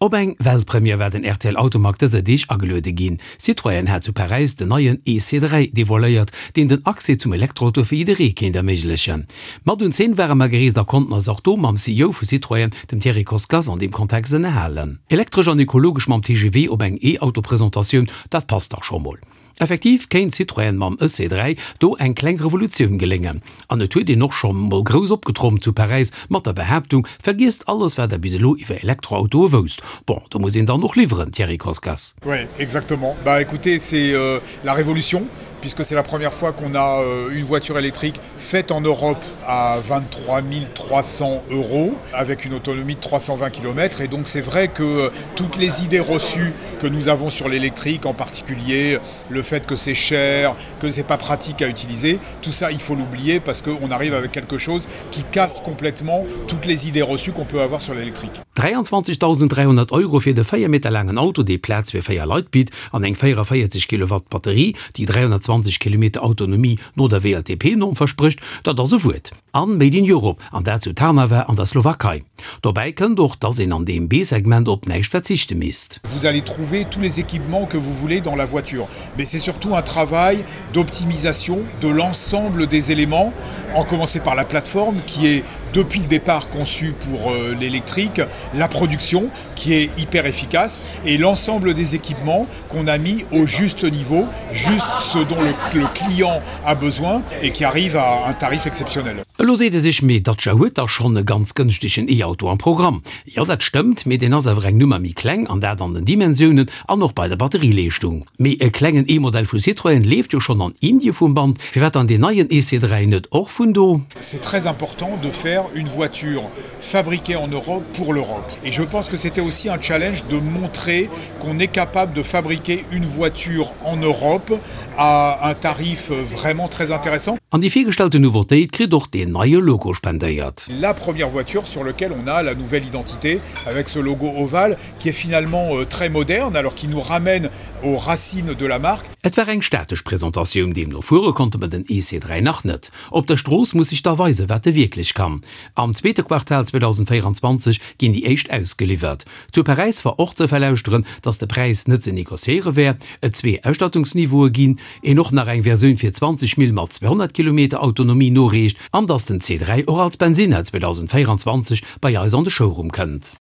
Op eng Weltpremière war den rtl Automag dëser Deeg ageluede ginn. Citroën hat zu Paräis den neien EC3 devoiléiert, deen den Accès zum Elektroauto fir jidderee kéint erméiglechen. Mat un d'Zeen ware mer gereest a konnten eis och do mam CEO vu Citroën, dem Thierry Koskas, an deem Kontext ënnerhalen. Elektresch an ekologesch mam TGV op eng E-Auto-Presentatioun, dat passt dach scho mol. Effektiv kéint Citroën mam EC3 do eng kleng Revolutioun geléngen. An et huet een och scho mol grouss opgetrompt zu Paräis mat der Behaaptung, Vergiesst alles wat der bis elo iwwer Elektroautoe wousst. Bon, do muss een dann och liwweren, Thierry Koskas. Oui, exactement. Bah écoutez, c'est la révolution puisque c'est la première fois qu'on a une voiture électrique faite en Europe à 23 300 euros avec une autonomie de 320 km et donc c'est vrai que toutes les idées reçues que nous avons sur l'électrique en particulier le fait que c'est cher que c'est pas pratique à utiliser tout ça il faut l'oublier parce qu'on arrive avec quelque chose qui casse complètement toutes les idées reçues qu'on peut avoir sur l'électrique. 23.300 Euro fir de 4 Meter laangen Auto, dee Plaz fir 4 Leit bitt, an eng 44 Kilowatt Batterie, déi 320 Kilometer Autonomie no der WLTP-Norm versprécht, dat ass e Wuert. An Made in Europe, an dat zu Trnava an der Slowakei. Dobäi kënnt och, dass een an deem B-Segment op näischt verzichte misst. Vous allez trouver tous les équipements que vous voulez dans la voiture, mais c'est surtout un travail d'optimisation de l'ensemble des éléments, en commencer par la plateforme qui est depuis le départ conçue pour l'électrique, la production qui est hyper efficace et l'ensemble des équipements qu'on a mis au juste niveau, juste ce dont le, le client a besoin et qui arrive à un tarif exceptionnel. Elo seet e sech, mee Dacia huet dach schonn e ganz gënschtegen E-Auto am Programm. Jo, dat stëmmt, mee deen ass awer eng Nummer méi kleng, an dat an den Dimensiounen an och bei der Batterieleeschtung. Mee e klengen E-Modell vu Citroën leeft jo schonn an Indie vum Band, firwat dann deen neien EC3 net och vun do? C'est très important de faire une voiture fabriquée en Europe pour l'Europe. Et je pense que c'était aussi un challenge de montrer qu'on est capable de fabriquer une voiture en Europe à un tarif vraiment très intéressant. An déi virgestallte Nouveautéit kritt och deen neie Logo spendéiert. La première voiture sur lequel on a la nouvelle identité avec ce logo ovale qui est finalement très moderne alors qui nous ramène aux racines de la marque. Et war eng statesch Presentatioun, deemno fuere konnte mer den EC3 nach net. Op der Strooss muss sech da weisen, wat e wierklech kann. Am zweete Quartal 2024 ginn déi éischt ausgeliwwert. Zu Paräis war och ze verlauschteren, datt de Präis net ze negociéiere wär, et zwee Ausstattungsniveaue ginn, een och nach eng Versioun fir 20 Mille mat 200 Kilometer Autonomie noreecht an datt den C3 och als Bensinner 2024 bei eis an de Showroom kënnt.